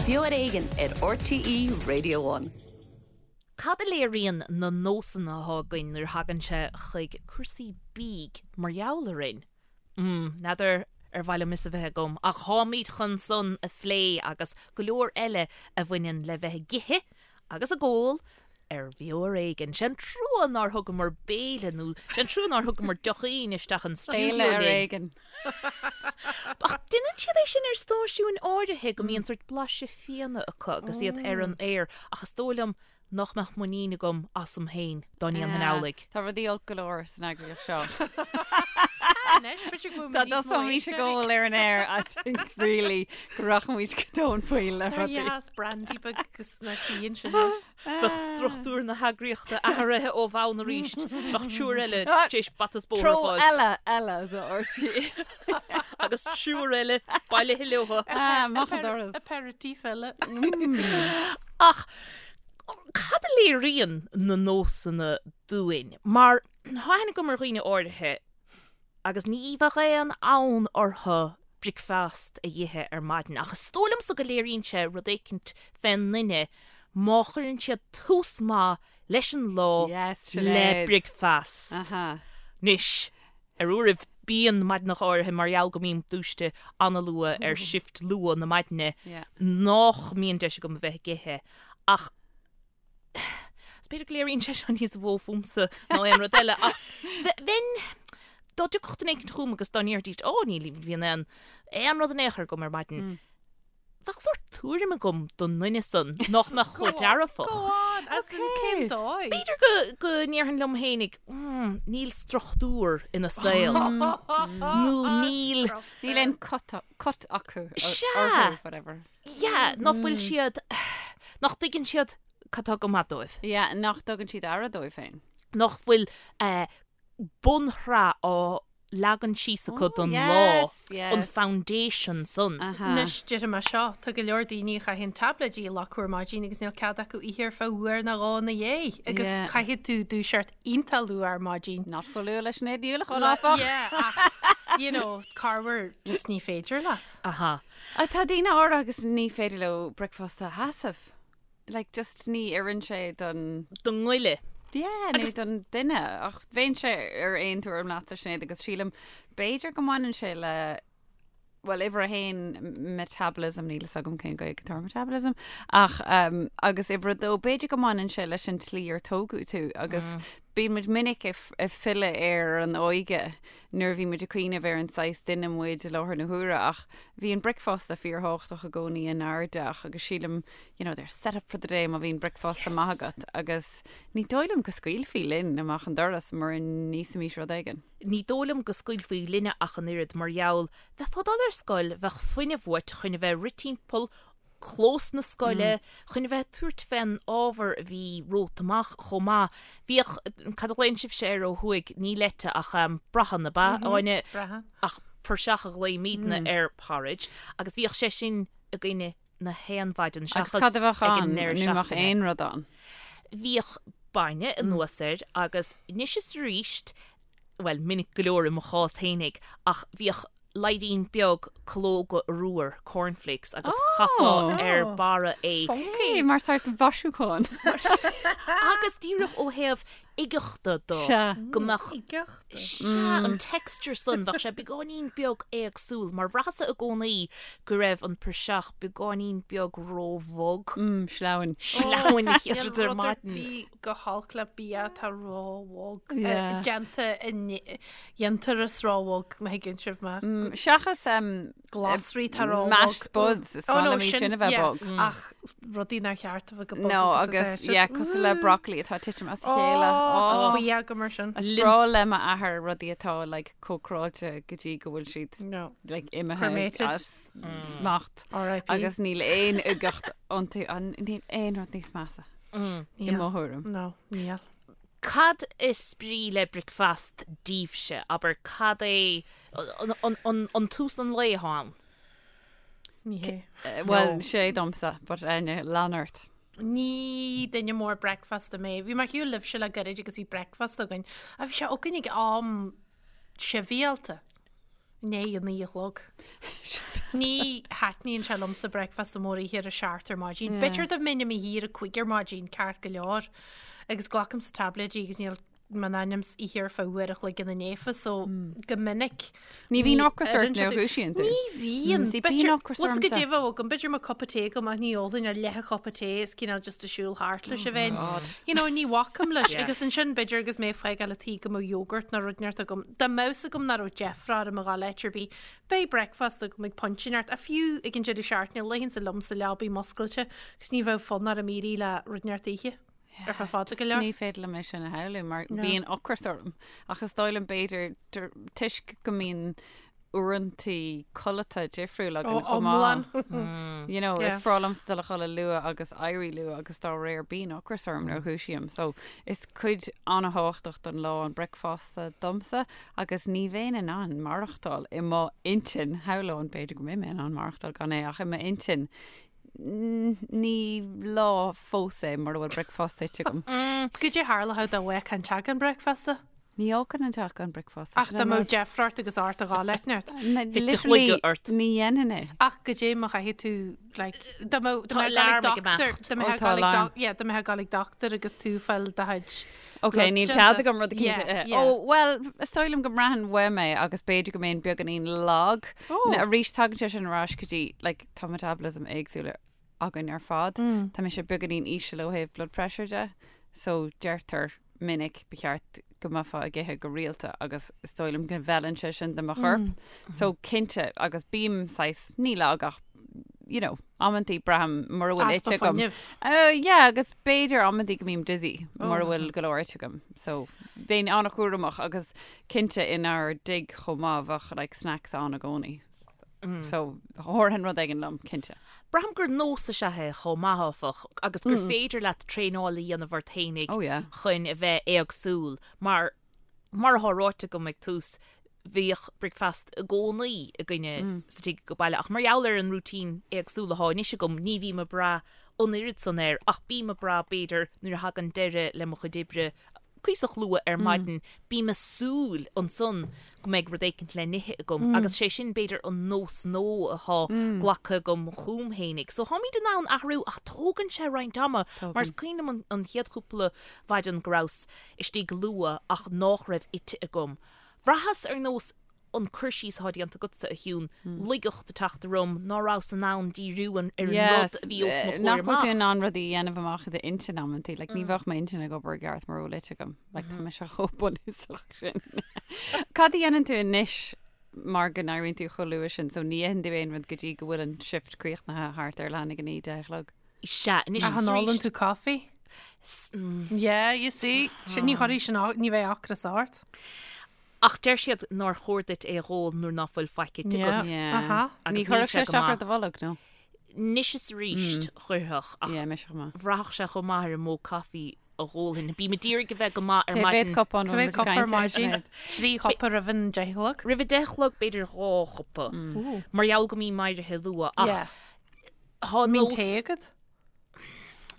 Beo ar Éigean ar RTÉ Radio One. Cad a léiríonn na nósanna atá againn nuair a thagann sé chuig cúrsaí bídh mar gheall orainn? Mm, n'fheadar ar mhaith liom fhios a bheith agam, ach táimid chun san a phlé agus go leor eile a bhaineann le bheith ag ithe agus ag ól ar Bheo ar Éigean. Sé an trua nár thugamar béile nó sé an trua nár thugamar deochín isteach an stiúideo Béile ar linn. éigean. Ach déanann siad é sin ar stáisiúin áirithe go mbíonn sórt blaiseadh fíona acu agus iad ar an aer ach is dóigh liom nach mbeadh muinín agam asam féin dá ndéanfainn amhlaidh. Tá rudaí olc go leor san eagraíocht seo. Anois, b'fhéidir go bhfuil Dá níos mó dtosóimís ag éisteoirí. ól ar an aer, I think really go rachaimís go tóin poill le Dar rudaí. dheas brandy beag agus nár suíonn sin leis. Bheadh struchtúr na heagraíochta athraithe ó bhonn arís. Bheadh triúr eile tar éis bata is bóthar a Treo fháilt. eile eile do RTÉ. Agus triúr eile bailithe leo. Ah, amach an doras. Aperitif eile. Ach cad a léiríonn na nósanna dúinn? Mar tá aithne agam ar dhaoine áirithe agus ní bheadh aon fhonn orthu bricfeast a dh'ithe ar maidin, ach is dóigh liomsa go léiríonn sé rud éicint fén nduine má chuireann siad tús maith leis an lá Yes, le Sinéad. bricfeast. Aha. Anois, ar uairibh bíonn maidineacha áirithe mar gheall go mbím dúiste an-luath ar shift luath na maidine Yeah. nách mbíonn deis agam a bheith ag ithe ach is b'fhéidir go léiríonn sé seo níos mó fúmsa ná aon rud eile ach bheinn dá dtiocfadh duine éicint chugam agus dá ndéarfaidís ó ní bhíonn aon aon rud in aon chor agam ar maidin. Bheadh sórt tuairim agam don nduine san nach mbeadh chomh dearfach. Go on, as in cén dóigh? B'fhéidir go go ndéarfainn liom fhéinig, mm, níl struchtúr ina saol. Nó níl... Níl aon cut cut acu. Sea! Orthu, whatever. Yeah, nach bhfuil siad, nach dtuigeann siad cad tá go maith dóibh. Yeah, nach dtugann siad aire dóibh féin. Nach bhfuil eh, bunshraith á leagan síos acu don lá, an foundation san. Anois, déarfaidh mé seo, tá go leor daoine a chaitheann táibléidí a leath ar maidin agus níl cead acu ithe ar feadh uair nó dhó ina dhiaidh agus caithfidh tú dúiseacht iontach luath ar maidin. Not chomh luath le Sinéad Ní Uallacháin, áfach. Yeah, ach, you know, corruair just ní féidir leat. Aha. Tá daoine áirithe agus ní féidir leo bricfeasta a sheasamh. Like, just ní oireann sé don. don ngoile. Yeah, nó don duine. Ach bheinnse ar aon tuairim leatsa, Sinéad, agus sílim, b'fhéidir go mbaineann sé le, bhuel, uimhir a haon, metabolism, níl fhios agam cén Ghaeilge atá ar metabolism, ach, um, agus uimhir a dó, b'fhéidir go mbaineann sé leis an tslí ar tógadh tú, agus bíonn muid minic ag filleadh ar an óige nuair a bhí muid ag cuimhneamh ar an saghas duine muid i láthair na huaire ach bhí an bricfeasta fíorthábhachtach i gcónaí inár dteach agus sílim you know they're set up for the day má bhíonn bricfeasta maith agat agus ní dóigh liom go scaoilfí linn amach an doras mura n-íosfaimis rud éigin. Ní dóigh liom go scaoilfí linne ach an oiread mar gheall bheifeá ag dul ar scoil bheadh fuinneamh uait chun a bheith ag rith timpeall clós na scoile, chun a bheith ag tabhairt fén ábhar a bhí romhat amach chomh maith. Bhíodh, cad a ghlaonn sibhse air ó thuaidh, ní leite ach brachán, ab ea, Áine? Brachán. Ach praiseach a ghlaoimidne ar porridge agus bhíodh sé sin againne na haon mhaidin Agus seachas cad a bheadh ag an ann? ndeireadh Ní bheadh seachtaine. aon rud ann. Bhíodh bainne anuas air agus anois is arís, bhuel, minic go leor i mo chás fhéinig, ach bhíodh laidhrín beag calóga arbhair, cornflakes, agus chaithfeá ar barra é. Funky! Mar sórt mhaisiúchán. Agus díreach ó thaobh uigeachta de, go mbeadh, Uigeachta? sea, an texture san, bheadh sé beagáinín beag éagsúil, mar bhraitheas-sa i gcónaí go raibh an praiseach beagáinín beag róbhog. Sleamhain. Sleamhain, ar Níl rud ar maidin. bith go holc le bia atá róbhog, déanta i ndéantús róbhog, má thuigeann sibh mé. Seachas Glasraí atá róbhog. Mashed spuds, is maith liom iad sin a bheith bog. Ach rudaí nár cheart a bheith chomh bog No, agus atá agus, siad. yeah, cosúil le broccoli atá ag titim as a chéile. Ó, tá fuath agam air sin. Is breá le m'athair rudaí atá like cócaráilte go dtí go bhfuil siad No. like imithe Cremated. as smacht. R.I.P. Agus níl aon uigeacht iontu, níl aon rud níos measa. I mo thuairim. No, níl. Cad is brí le bricfeast daoibhse? Abair, cad é an tús an lae atá ann? Ní hé. Bhuel, sé domsa, but Áine, lean ort. Ní duine mór bricfeasta mé. Bhí mé ar shiúl libhse le gairid agus bhí bricfeasta againn. Ach bhí sé againn ag am sibhialta. I ndiaidh a 9 a chlog. Ní thaitníonn sé liomsa bricfeasta mór a ithe ar a seacht ar maidin. B'fhéidir dá mbeinn i mo shuí ar a cúig ar maidin, ceart go leor. Agus glacaimse taibléidí agus níl m'ainm 's ithe ar feadh uair a chloig ina ndiaidh so go minic. Ní bhíonn ocras ort nuair a dhúisíonn tú. Ní bhíonn. See, bíonn ocras ormsa. Go ormsa. deimhin agam, b'fhéidir mo cupa tae agam ach ní ólfainn ach leath chupa tae is cineál just ag siúl thart leis a bheinn. God. You know, ní bhacaim leis. Yeah. Agus ansin b'fhéidir agus mé ag fágáil an tí go mbeadh yogurt nó rud inteacht agam. Dá mbeadh 's agam nach raibh deifre orm a ghabháil áit ar bith, beidh breakfast agam ag pointe inteacht. Ach fiú ag an deireadh seachtaine, luífinnse liom sa leabaidh muscailte agus ní bheadh fonn orm éirí le rud inteacht a ithe. Ar feadh fada go leor. Ní féidir liom é sin a shamhlú mar bíonn ocras orm ach is dóigh liom b'fhéidir toisc go mbíonn uaireantaí codlata difriúil againn chomh maith. You know, is breá liomsa dul a chodladh luath agus éirí luath agus dá réir bíonn ocras orm nuair a dhúisím. So is cuid an-thábhachtach den lá an bricfeasta domsa agus ní bheinn in ann maireachtáil i mo intinn, shamhlóinn b'fhéidir go mbeidh mé in ann maireachtáil gan é ach i m'intinn Ní lá fós é mura bhfuil bricfeasta ite agam. Goidé tharlódh dá bhfágfá an teach gan bricfeasta? Ní fhágann an teach gan bricfeasta. Ach dá mbeadh deifre ort agus ort a ghabháil áit inteacht. Literally ní dhéanfainn é. Ach goidé má chaithfidh tú like dá mbeadh Tá alarm ag imeacht. dá mbeadh Ó, tá alarm. yeah dá mbeifeá ag gabháil ag dochtúir agus tú ag fáil do chuid Ok, níl cead agam rud eicínt a ithe. Ó, bhuel, is dóigh liom go mbraitheann uaim é agus b'fhéidir go mbeinn beagáinín lag. Arís tagann sé sin ar ais go dtí like tá metabolism éagsúil againn ar fad. Tá mise beagáinín íseal ó thaobh blood pressure de, so deirtear minic ba cheart go mbeifeá ag ithe go rialta agus is dóigh liom go bhfeileann sé sin do mo chorp. So cinnte, agus bím saghas, ní lag ach you know, amantaí braithim mura bhfuil Easpa ite agam. fuinnimh. Uh, yeah, agus b'fhéidir amantaí go mbím dizzy mura bhfuil go leor ite agam. So bheinn an-chúramach agus cinnte inár dtigh chomh maith bheadh like snacks ann i gcónaí. So thabharfainn rud éigin liom, cinnte. Braithim gur nós is ea é chomh maith, áfach, agus gur féidir leat traenáil a dhéanamh ort fhéinig Oh yeah. chun a bheith éagsúil, mar, mar atá ráite agam ag tús, bhíodh bricfeasta i gcónaí againne sa tigh ag baile, ach mar gheall ar an routine éagsúil atá anois agam, ní bhím ag brath an oiread san air, ach bím ag brath, b'fhéidir, nuair a thagann deireadh le mo chuid oibre, cuíosach luath ar maidin, bím ag súil ansan go mbeidh rud éicint le n-ithe agam agus sé sin b'fhéidir an nós nua atá glactha agam chugam fhéinig. So táimid in ann athrú ach tógann sé roinnt ama mar is cuimhin liom an chéad chúpla mhaidin go rabhas istigh luath ach nách raibh ite agam. Bhraitheas ar nós an cur síos atá déanta agatsa, a Shiún, laigeacht ag teacht orm, ná rabhas in ann díriú ar an rud a bhí os mo chomhair Nach bhfuil tú in amach. ann rudaí a dhéanamh amach i d'intinn amantaí, like ní bheadh m'intinn ag obair i gceart mura bhfuil ite agam. Like tá mise chomh bunúsach sin. Cad a dhéanann tú anois mar go n-éiríonn tú chomh luath sin, so ní itheann tú aon rud go dtí go bhfuil an shift críochnaithe thart ar leath i ndiaidh a 9, 10 a chlog? Sea, anois Ach is an ólann arís. tú coffee? Yeah, you see. Sin ní chuirfidh sin, ní bheidh ocras ort. Ach deir siad nár chóir duit é a dh'ól nuair ná fuil faic ite agat. Yeah. Aha. Ní Agus níl chuirfeadh sé sé go isteach ar maith. do bholg, nó? Anois is arís chuirfeadh, ach Yeah, mise chomh maith. bhraithfeadh sé chomh maith ar an mó caife a dh'ólfainn. Bím ag iarraidh a bheith go maith ar Cé mhéad maidin. cupán Cé bhfuil mhéad muid ag cupa ar caint air, maidin? Sinéad? Trí chupa roimh an deich a chlog? Roimh a deich a chlog b'fhéidir dhá chupa. Mar gheall go mbím éirithe luath. Ach Yeah. thá Mbíonn nós... tae agat?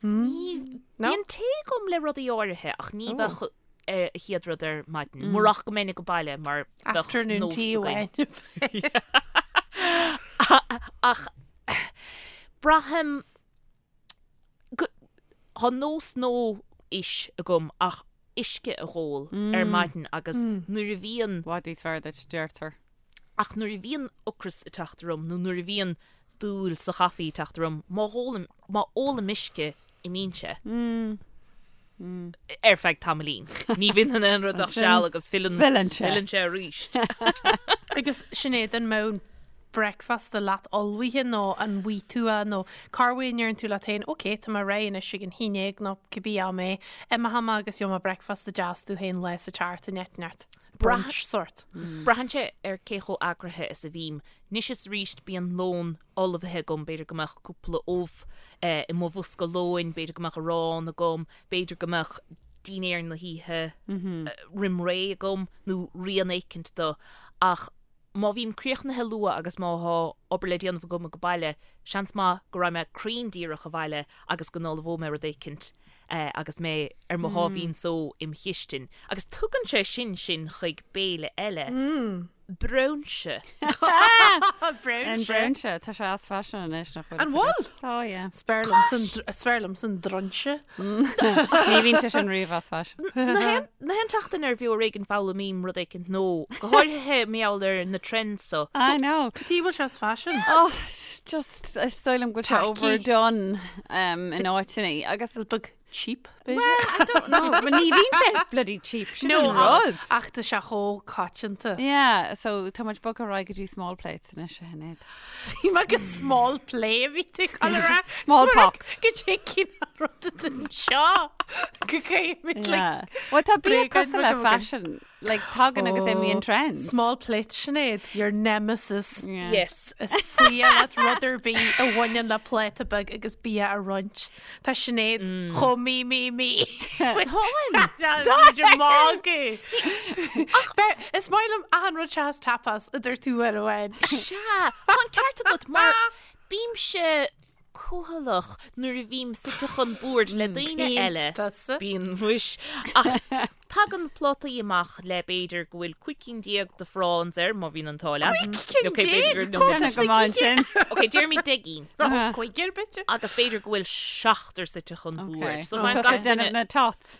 Ní No? Bíonn tae agam le rudaí áirithe ach ní bheadh a chéad rud ar maidin. Murach go mbeinn ag baile mar bheadh Afternoon nós tea againn. amháin. Ach braithim go Tá nós nua anois agam ach uisce a dh'ól ar maidin agus nuair a bhíonn I bhfad níos fearr duit, deirtear. Ach nuair a bhíonn ocras ag teacht orm nó nuair a bhíonn dúil sa chaife ag teacht orm, má ólaim, má ólaim uisce, imíonn sé. Ar feadh tamaillín. Ní bhíonn in aon rud ach seal agus filleann, Filleann sé. filleann sé arís. Agus Sinéad, an mbeadh bricfeasta leat ullmhaithe nó an bhfaighidh tú é nó corruair an ndeireann tú leat féin, ok, tá mé réidh anois ag an haon déag nó cibé am é, imeoidh mé agus gheobhaidh mé bricfeasta deas domh féin lá sa tseachtain inteacht. Brunch sort. Braitheann sé ar cé chomh eagraithe is a bhím. Anois is arís bíonn lón ullmhaithe agam, b'fhéidir go mbeadh cúpla ubh i mo bhosca lóin, b'fhéidir go mbeadh arán agam, b'fhéidir go mbeadh dinnéar na hoíche roim ré agam nó rian éicint de. Ach má bhím críochnaithe luath agus má thá obair le déanamh agam ag baile, seans maith go raghaidh mé cruinn díreach abhaile agus go n-ullmhóidh mé rud éicint agus mé ar mo sháimhín só im chistin. Agus tugann sé sin sinn chuig béile eile. Braoinse. An Braoinse. braoinse, tá sé as faisean anois nach bhfuil. An bhfuil? Tá, yeah. Is fearr liomsa an- is fearr liomsa an droinse. Ní bhíonn sé sin riamh as faisean. Na haon tseachtain ar Bheo Ar Éigean foghlaimím rud éicint nua, go háirithe mar gheall ar na trends so. I know. Cad chuige a bhfuil sé as faisean? Oh, just, is dóigh liom go bhfuil sé Tacky. overdone um, in áiteanna agus Rud beag cheap, b'fhéidir? Well, I don't know, but ní bhíonn sé bloody cheap, sin No, an rud. ach tá sé chomh coitianta. Yeah, so tá muid bogtha ar aghaidh go dtí small plates anois a Shinéad. Bhí mé go small play a bhí tú ag dul a rá. Small pox. Go dtí cinn rud anseo go gcaithfimid like Yeah. Well, tá bia bréagáin cosúil le beaga againn. fashion, like tagann agus imíonn trends. Small plate Sinéad, your nemesis. Yeah. Yes. Is fuath leat rud ar bith a bhaineann le pláta beag agus bia a roinnt. Tá Sinéad chomh mí mí mí. Táim. Tá magadh. Ach is maith liom achan rud seachas tapas a dúirt tú uair amháin. Sea, tá an ceart agat mar bímse cúthaileach nuair a bhím suite chun boird le daoine eile. Tusa. Bíonn muis. Ach tagann plátaí amach le b'fhéidir go bhfuil 15 cinn de prawns air, má bhíonn an t-ádh leat. cinn Ok, b'fhéidir gur déag? nó Déanamh go maith ansin. Ok, déarfaimid 10 gcinn. Cúigear b'fhéidir. Agus b'fhéidir go bhfuil seachtar suite chun boird. So Tá faigheann tusa gach ag déanamh duine na tots.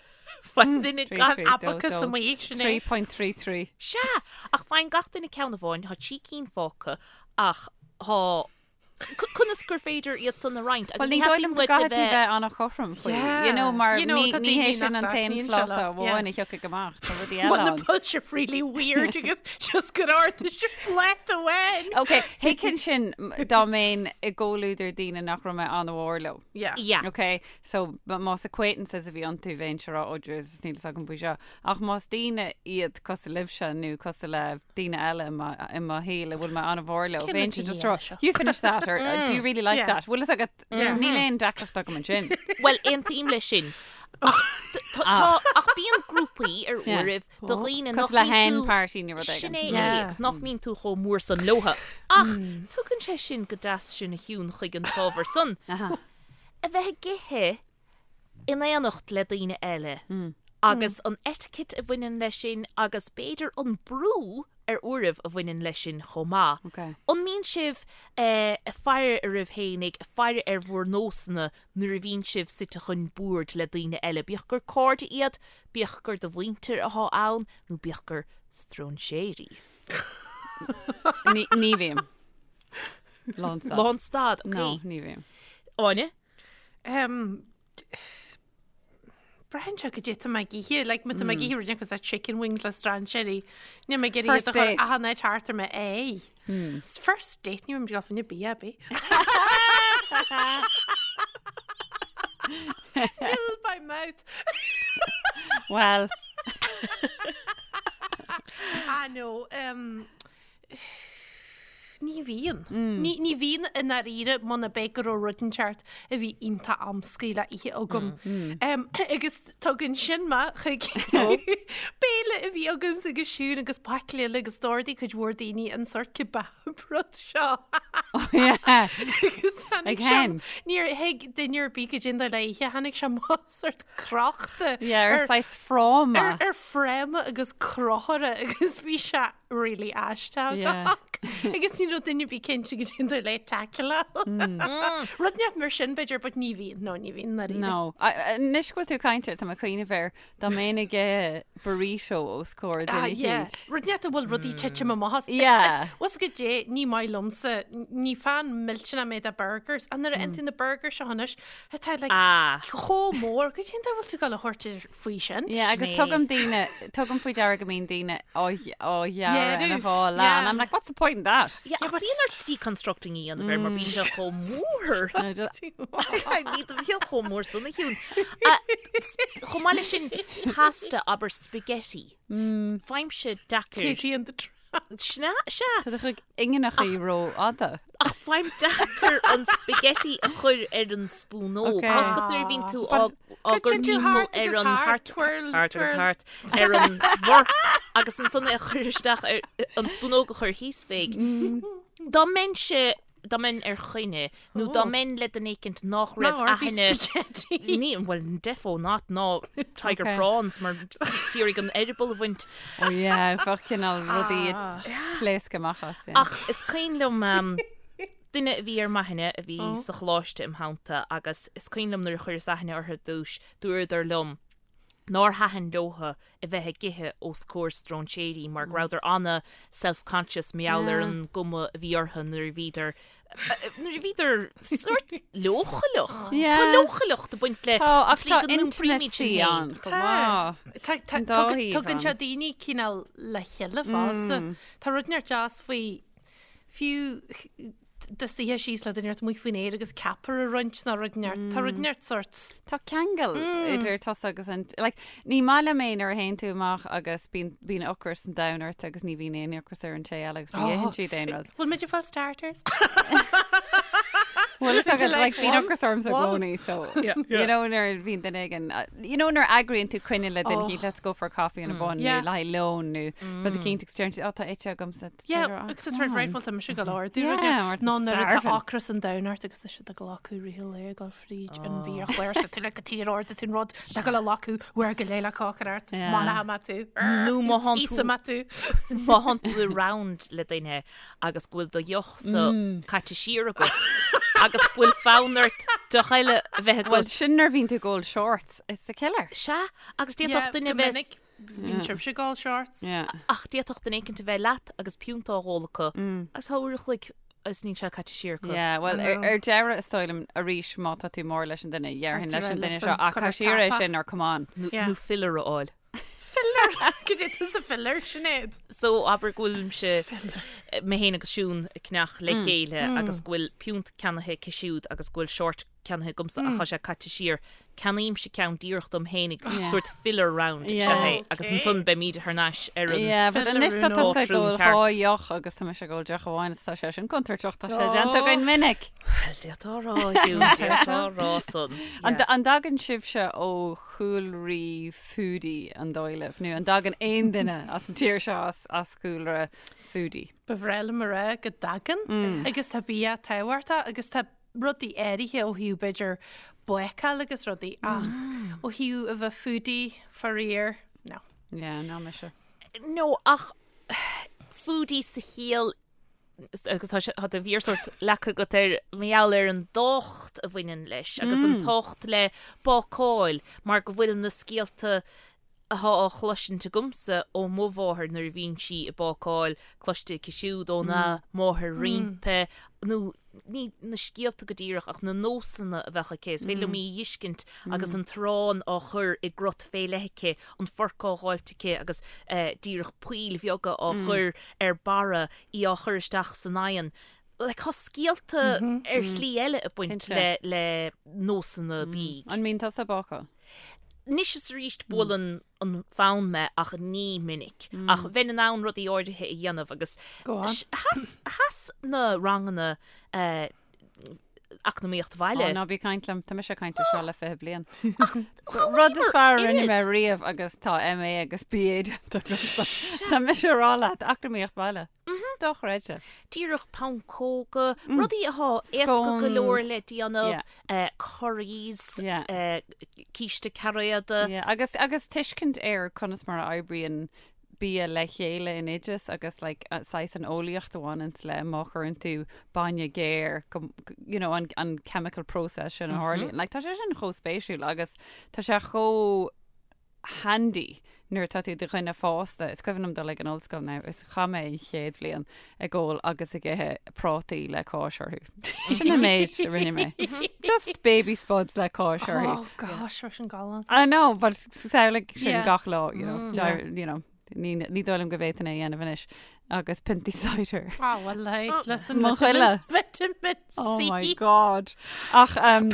faigheann duine Trí, gach trí, dó, Abacus dó. amuigh, Sinéad. 3.33. Sea, ach faigheann gach duine ceann amháin, tá 3 cinn fágtha, ach tá Conas gur féidir iad san a roinnt? Agus Well, ní ní dóigh theastaíonn liom go uait a gcaithfidh tú bheith bheith an-chothrom faoi. Yeah. You know, mar You know, ní tá ní hé daoine sin nach an t-aon dtaitníonn sé phláta leo. amháin Yeah. a thiocfaidh amach. Tá rudaí eile Bhuel, na ann. bhfuil sé really weird agus just gur ardaigh sé pláta amháin. Ok, thuigfinn sin m- dá mbeinn i gcomhluadar daoine nach raibh mé an-mhór leo. Yeah. Yeah. Ok, so m- más acquaintances a bhí iontu bheinnse ag rá, oh Jesus, níl fhios agam faoi seo. Ach más daoine iad cosúil libhse nó cosúil le daoine eile i mo i mo shaol a bhfuil mé an-mhór leo, Cé na bheinnse daoine just ag rá, eile seo? you finish that or do you really like Yeah. that? Bhfuil fhios agat, níl aon deacracht agam ansin. Bhuel, aontaím leis sin. Ach tá- tá- ach bíonn grúpaí ar Yeah. uairibh do dhaoine nach Cosúil le mbíonn hen tú party nó rud Sin éigin. é é, Yeah. agus nach mbíonn tú chomh mór san leotha. Ach tugann sé sin go deas sinn a Shiún chuig an t-ábhar san. Aha. A bheith ag ithe in éineacht le daoine eile agus an etiquette a bhaineann leis sin agus b'fhéidir an brú ar uairibh a bhaineann leis sin chomh maith. Ok. An mbíonn sibh ag faire oraibh fhéinig, ag faire ar bhur nósanna nuair a bhíonn sibh suite chun boird le daoine eile, bíodh gur cairde iad, bíodh gur do mhuintir atá ann nó bíodh gur stróinséirí? Ní ní bhím. Lánstad. Lánstad, ok. No, ní bhím. Áine? Um, Braitheann sé goidé tá mé ag ithe, like, má tá mé ag ithe rud cosúil le chicken wings le strainséirí. Níl mé ag iarraidh First iad a chur date. achan áit thart ar m'aghaidh. First date ní bhím ag dul fá choinne bia ar bith. Nil by mouth. Well, Ah no, um, Ní bhíonn. Ní ní bhíonn i ndáiríre muna b'é go raibh rud inteacht a bhí iontach amscaí le ithe agam. Agus tugann sin mé chuig béile a bhí agamsa agus Siún agus baicle eile agus d'ordaigh cuid mhór daoine an sórt kebab rud seo. Agus tháinig Ag sé hen. níor thuig duine ar bith goidé an dóigh le ithe, tháinig sé amach sórt crochta yeah, ar ar saghas fráma. ar ar fráma agus crochaire agus bhí sé really aisteach Yeah. agus ní raibh duine ar bith cinnte goidé an dóigh le tackle. Rud inteacht mar sin b'fhéidir, but ní bhíonn, no, ní bhíonn dáiríre. No. Anois go bhfuil tú ag caint air, tá mé ag cuimhneamh air, dá mbeinn ag ithe burrito os comhair Ah, duine yeah. eicínt. Rud inteacht a bhfuil rudaí titim amach as. Is- Yeah. is- Bhfuil fhios agat goidé, ní maith liomsa, ní fan millteanach mé de burgers, and nuair a fhaigheann tú na burgers seo anois, atá like Ah. chomh mór, goidé an dóigh a bhfuil tú ag dul a thabhairt air faoi sin? Yeah, agus Sin é. tugaim daoine, tugaim faoi deara go mbíonn daoine á á ghearradh ina Ghearradh, dhá leath. yeah. And I'm like, what's the point in that? Yeah, ach bíonn ort deconstructing a dhéanamh air mar bíonn sé chomh mór. I just- Ní do bhíonn chomh mór san a Shiún. Chomh maith leis sin pasta abair spaghetti. Faighimse deacair. Katie and the Tramp. Sea, sea. Tá do chuid ingineachaí rófhada. Ach faighim deacair an spaghetti a chur ar an spúnóg. Ok. Tá fhios agat nuair a bhíonn tú á á gcur Cuireann tú timpeall thart ar agus an thart, thart twirl, thart agus twirl. thart ar an bhforc agus ansan é a chur isteach ar an spúnóg a chur thíos fé. Dá mbeinnse dá mbeinn ar choinne nó dá mbeinn le duine éicint nach raibh aithne ní bhuel defo not ná tiger prawns mar d'iarraidh an eireaball a bhaint. Oh yeah, bheadh cineál rudaí ag pléascadh amach as. Ach is cuimhin liom duine a bhí ar m'aithne a bhí sa choláiste im theannta agus is cuimhin liom nuair a chuireas aithne orthu ar dtús, dúradar liom, nár thaitin leotha a bheith ag ithe os comhair stróinséirí mar go rabhadar ana self conscious mar gheall ar an gcuma a bhí orthu nuair a bhíodar nuair a bhíodar sórt leochaileach. Tá leochaileacht ag baint le an tslí go n-iompraímid sinn féin. Tá tugann sé daoine cineál le chéile fosta. Tá rud inteacht deas faoi fiú do suí síos le duine inteacht amuigh faoin aer agus ceapaire a roinnt nó rud inteacht. Tá rud inteacht sórt. Tá ceangal idir tusa agus an, like, ní maith liom é nuair a théann tú amach agus bíonn, bíonn ocras an domhain ort agus ní bhíonn aon ocras ar an té eile agus ní itheann siad aon rud. Bhfuil muid ag fáil starters? Bhuel, is agad, like, bíonn ocras ormsa i gcónaí, so, you know, nuair a bhíonn duine éigin, you know, nuair a eagraíonn tú coinne le duine éicint, let's go for a coffee and a bun, nó le haghaidh lón, nó rud eicínt agus deireann siad, oh, tá ite agamsa. Yeah, agus it's right, right, bhuel tá mise go leor. Dúradh Yeah, mar tá ná nuair atá starving. ocras an domhain ort agus tá siad ag glacadh rith an lae ag dul fríd an bhiachlár tá tú le go tír ard tú an rud tá go le lacú uair go léile cócair ort Yeah. Má má tú. Nó má thánn tú- Íosa má tú. Má thánn tú i round le duine agus go bhfuil do deoch sa caite siar agat agus go bhfuil fonn ort deoch eile a bheith Well, agat. sin nuair a bhíonn tú ag ól shorts, it's a killer. Sea, agus Yeah, d'fhéadfadh duine go bheith minic Bhíonn sibhse ag ól shorts. Yeah. Ach d'fhéadfadh duine éicint a bheith leat agus piúnta á dh'ól acu agus tá uair a chloig agus níl sé caite siar acu. Yeah, well, ar, ar deireadh is dóigh liom arís má tá tú mór leis an duine, dhéarfainn leis an duine seo, ach caith siar é sin or come on. Nó, Yeah. nó filler a fháil. Filler! Cad é tusa filler, Sinéad? So abair go bhfuilimse mé féin agus Siún ag ceannach le chéile agus go bhfuil piúnt ceannaithe aici siúd agus go bhfuil short ceannaithe agamsa ach tá sé caite siar. Ceannaímse ceann díreach dom fhéinig, sórt filler round is ea é, agus ansan beimid thar n-ais ar an. Yeah, but anois tá tusa ag ól dhá ceart. dheoch agus tá mise ag ól deoch amháin is tá sé sin contúirteach, tá sé déanta againn minic. Bhuel, d'fhéadfá a rá, a Shiún, d'fhéadfá a rá san. An an dtagann sibhse ó chúlraí foodie an dóigh libh, nó an dtagann aon duine as an tír seo as as chúlra foodie? Ba bhreá liom a rá go dtagann agus tá bia tábhachtach agus tá rudaí áirithe ó thaobh b'fhéidir bácáil agus rudaí ach ó thaobh a bheith foodie faraor, no. Yeah, ná mise. No, ach foodie sa chiall agus tá sé tá do mhéar sórt leagtha agat air mar gheall ar an dtábhacht a bhaineann leis agus an tábhacht le bácáil mar go bhfuil na scéalta atá á chloisint agamsa ó mo mháthair nuair a bhíonn sí ag bácáil, cloiste aici siúd óna máthair roimpi, nó ní na scéalta go díreach ach na nósanna a bheadh aici, is féidir liom í a dh'fheiscint agus an t-arán á chur i gcrot fé leith aici, an forc á dh'fháilt aici agus díreach poill bheaga á chur ar barra, í á chur isteach san oigheann. Like, tá scéalta ar shlí eile ag baint le le nósanna bídh. An mbíonn tusa ag bácáil? Anois is arís buaileann an fonn mé ach ní minic. Ach bheinn in ann rudaí áirithe a dhéanamh agus Go on. sheas sheas na ranganna eacnamaíocht bhaile. Ó, ná bí ag caint liom, tá mise ag caint air seo le 20 bliain. Rud is fearr a rinne mé riamh agus tá MA agus BA déanta agamsa. Tá mise ag rá leat, eacnamaíocht bhaile. Dochreidte. Díreach pancóga, rudaí atá éasca go leor le déanamh, curries, císte cairéada. Agus agus tuiscint ar conas mar a oibríonn bia le chéile in oideas agus like saghas an eolaíocht a bhaineanns le má chuireann tú bainne géar go you know an an chemical process sin a tharlaíonn. Like tá sé sin chomh spéisiúil agus tá sé chomh handy nuair atá tú i do dhuine fásta. Is cuimhin liom dul ag an ollscoil now is chaith mé an chéad bhliain ag ól agus ag ithe prátaí le cáis orthu. Sin an méid a rinne mé. Just baby spuds le cáis orthu. Oh gosh, raibh sin galánta. I know, but samhlaigh sin Yeah. gach lá, you know, mm, you know, ní ní dóigh liom go bhféadfainn é a dhéanamh anois. Agus piontaí cider. Ah, well, like, listen, Mo chuile. Vitamin C. Oh my God. Ach um,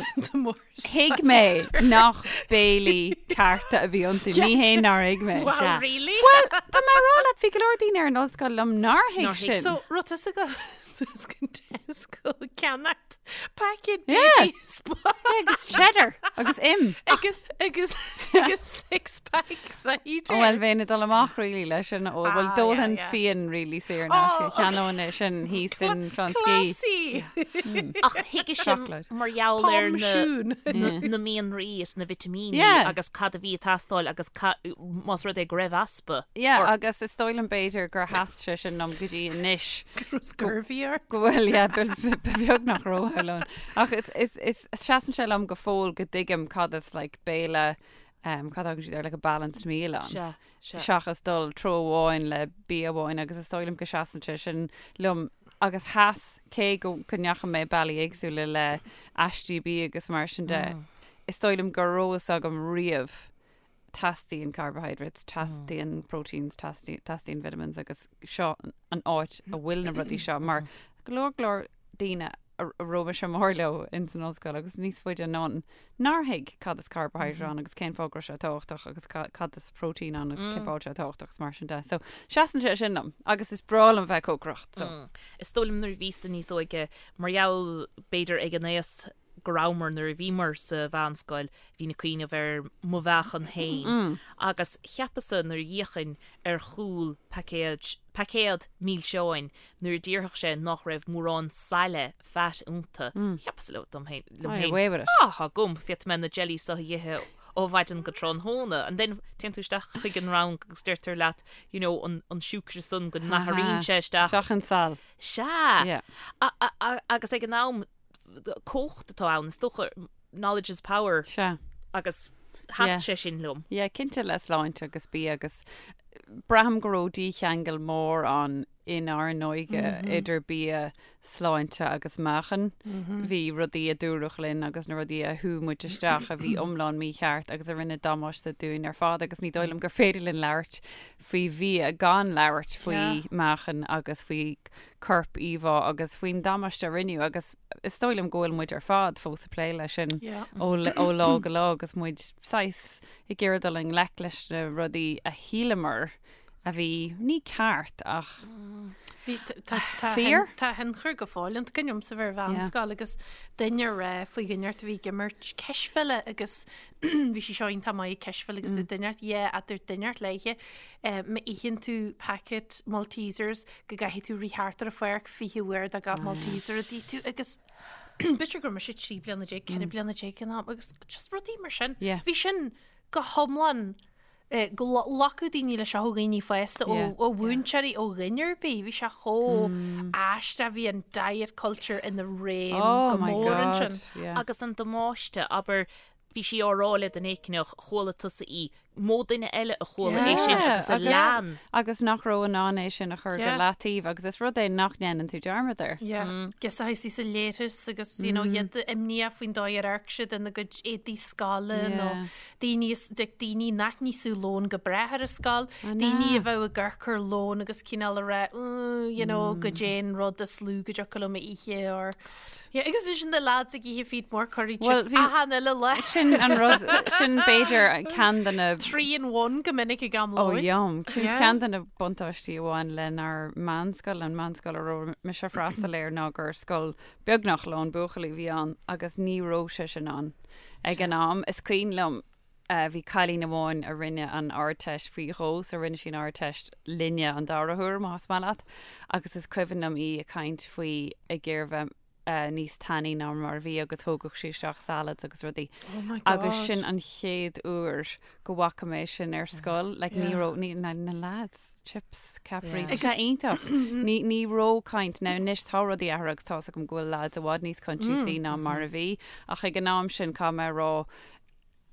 thuig mé nach béilí cearta a bhí iontu. Ní hé nár thuig mé. Wow, Sea. really? Well, tá mé ag rá leat bhí go leor daoine ar an ollscoil liom nár thuig Nár thuig. sin. So, raibh tusa ag dul suas go Tesco ceannacht packet Yeah. baby spuds. agus cheddar agus im. Agus agus agus six pack cider. Ó bhuel bheinn ag dul amach really leis sin ó bhuel Ah, d'ólfainn yeah, yeah. fíon really saor in Oh, aisce cheannóinn é sin thíos in Clonskeagh. Classy. Ach thuige sin Chocolate. mar gheall ar Pom na siún. na na mianraí is na vitimíní Yeah. agus cad a bhí ag teastáil agus ca- más rud é go raibh easpa Yeah, ort. agus is dóigh liom b'fhéidir gur sheas sé sin liom go dtí anois Scurvy ort. go bhfuil yeah, ba ba- ba bheag nach raibh ann. Ach is is is seasann sé liom go fóill go dtuigim cad is like béile um, cad a thugann siad air like a balanced meal ann. Sea, sea. seachas dul treo amháin le bia amháin agus is dóigh liom go seasann sé sin liom agus sheas cé go go ndeachaigh mé bealaí éagsúla le aistí bídh agus mar sin de is dóigh liom go raibh fhios agam riamh teastaíonn carbohydrates, teastaíonn proteins, teastaíonn teastaíonn vitamins agus seo an áit a bhfuil na rudaí seo mar go leor go leor daoine a raibh mise mór leo ins an ollscoil agus níos faide anonn nár thuig cad is carbohydrate ann agus cén fáth go raibh sé tábhachtach agus cad is protein ann agus cén fáth sé tábhachtach agus mar sin de. So seasann sé sin liom agus is breá liom bheith ag cócaireacht. So. Is dóigh liom nuair a bhíos-sa níos óige mar gheall b'fhéidir ag an aos go rabhamar nuair a bhíomar sa mheánscoil, bhínn ag cuimhneamh ar mo mheáchan féin agus cheapas-sa nuair a d'fhéachainn ar chúl paicéid, paicéad milseáin nuair a déarfadh sé nach raibh mórán saille, fat, iontu, cheapas-sa liom féin, liom féin, away with it. ah, tá agam, féadfaidh mé na jellies seo a dh'ithe ó mhaidin go tráthnóna. And then téann tú isteach chuig an rang agus deirtear leat, you know, an, an siúcra san go n-athraíonn sé isteach. Isteach in sal. Sea! Yeah. A, a, a, agus ag an am, cumhacht atá ann, is dócha, knowledge is power. Sea. Agus sheas sé sin liom. Yeah, cinnte le sláinte agus bia agus braithim go raibh dícheangal mór ann inár n-óige idir bia, sláinte agus meáchan. Bhí rudaí a dúradh linn agus na rudaí a shú muid isteach a bhí iomlán mícheart agus a rinne damáiste dúinn ar fad agus ní dóigh liom gur féidir linn labhairt faoi bhia gan labhairt faoi meáchan agus faoi corp íomhá agus faoin damáiste a rinneadh agus is dóigh liom go bhfuil muid ar fad fós ag plé leis sin ó ó lá go lá agus muid saghas ag iarraidh dul i ngleic leis na rudaí a shíleamar a bhí ní ceart ach Bhí tá tá Fíor? tá tionchar go fóill ann. Cuimhin liomsa bheith ar mheánscoil agus duine ag rá faoi dhuine inteacht a bhí ag imirt cispheile agus bhí sí seo iontach maith ag cispheil agus bhí duine inteacht yeah a dúirt duine inteacht léithe má itheann tú packet Maltesers go gcaithfidh tú rith thart ar an pháirc 20 uair do gach Malteser a d'ith tú agus b'fhéidir go raibh mise 13 bliana, 14 bliana ag an am agus just rudaí mar sin. Yeah. Bhí sin go hiomlán eh, go nglacfadh daoine leis seo ó dhaoine fásta, ó Yeah. ó mhúinteoirí, ó dhuine ar bith. Bhí sé chomh aisteach, bhí an diet culture ina réim Oh go my mór God. ansin. Yeah. Agus an damáiste, abair, bhí sí á rá le duine éicneach, chuala tusa í, mó duine eile a chuala é sin agus a lean. Agus nach raibh in ann é sin a chur go Yeah. leataobh agus is rud é nach ndéanann tú dearmad air. Yeah. Agus a thaisí sa léiris agus you know, iad imníoch faoin dóigh ar amharc siad ina gcuid éadaí scoile nó Yeah. daoine is- like, daoine nach n-íosfadh lón go breá ar an scoil, I daoine a know. bheadh ag amharc ar lón agus cineál a rá "Mm, you know, goidé an rud is lú go dtiocfadh liom a ithe or Yeah, agus ansin na lads ag ithe feed more curry Well, chips bhí- achan uile lá. Sin an rud, sin b'fhéidir ceann de na 3 in 1 go minic ag am Ó lóin. yum. Sin Yeah. ceann de na buntáistí a bhain lenár meánscoil, an meánscoil a raibh mise ag freastal air ná gur scoil beagnach lán buachaillí a bhí ann agus ní raibh sé sin ann ag an am. Is cuimhin liom bhí cailín amháin a rinne an Ardteist faoi dhó, so rinne sí an Ardteist linne an dara huair, más maith leat, agus is cuimhin liom í ag caint faoi ag iarraidh bheith níos tanaí ná mar a bhí agus thógadh sí isteach salads agus rudaí. Oh my God. Agus sin an chéad uair go bhfaca mé sin ar scoil, like ní raibh, ní, na, na lads, chips, ceapairí, Yeah. bhí sé iontach. Ní, ní raibh caint, now anois tá rudaí athraithe agus tá's agam go bhfuil lads i bhfad níos coinsiasaí ná mar a bhí, ach ag an am sin caithfidh mé a rá,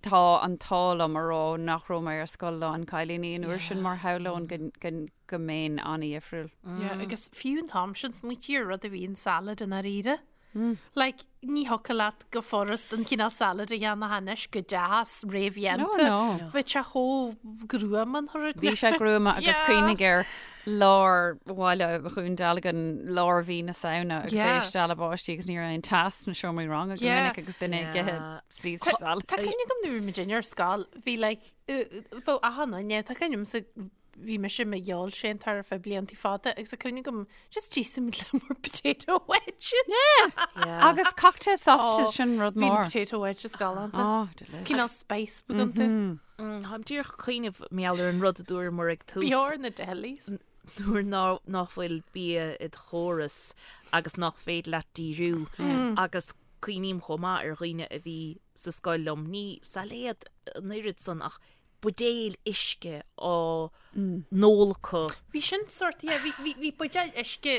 Tá an t-ádh liom a rá nach raibh mé ar scoil lán cailíní an uair sin mar shamhlóinn go, go, go mbeinn an-dhifriúil. Yeah, agus fiú an t-am sin smaoitigh ar rud a bhí in salad i ndáiríre. Like, ní thiocfadh leat go furast an cineál salad a dhéanamh anois go deas réamhdhéanta. No, no. Bhí sé chomh gruama an rud. Bhí sé gruama agus Yeah. cuimhnigh ar lár bhaile Dhún Dealgan, lár mhí na Samhna agus Yeah. é ag stealladh báistí agus ní raibh aon teas sna seomraí ranga go Yeah. minic agus duine ag ithe Yeah. Caesar salad. Tá cuimhne agam nuair a bhí muid ar scoil, bhí like, bheadh achan duine, tá cuimhne agamsa. bhí mise i mo fheoilséantóir ar feadh blianta fada agus tá cuimhne agam just d'íosfadh le more potato wedges. Yeah. Agus cocktail sausages sin rud Bhí na mór. potato wedges galánta. Oh, delicious. Cineál spice beag iontu. Táim díreach ag cuimhneamh mar gheall ar an rud a dúramar ag tús. B'fhearr na delis. Nuair nach bhfuil bia id chóras agus nach féidir leat díriú agus cuimhním chomh maith ar dhaoine a bhí sa scoil liom, ní sailéad an oiread san ach buidéil uisce á n-ól acu. Bhí sin sort, yeah, bhí, bhí, bhí buidéal uisce,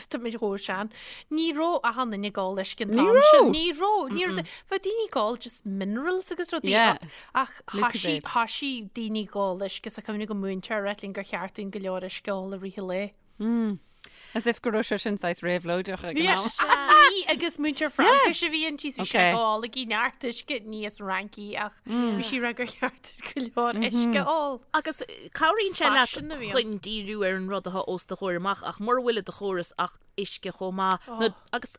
tá mé chomh sean, ní raibh achan duine ag ól uisce an Ní t-am raibh! sin. Ní raibh, ní raibh, bheadh daoine ag ól just minerals agus rudaí, Yeah. ach Lucozade. thoisigh, thoisigh daoine ag ól uisce, is cuimhin liom go múinteoir a rá linn gur cheart dúinn go leor uisce a ól i rith an lae. As if go raibh sé sin saghas réabhlóideach ag an am. Bhí agus múinteoir Fraincise a bhí inti bhí sí Okay. ag ól ag neart uisce ní as Fhraincis ach bhí sí ag rá gur cheart go leor uisce a ól. Agus cabhraíonn sé leat Faisean a bhí ann. chun díriú ar an rud atá os do chomhair amach ach mura bhfuil i do chóras ach uisce chomh maith nó agus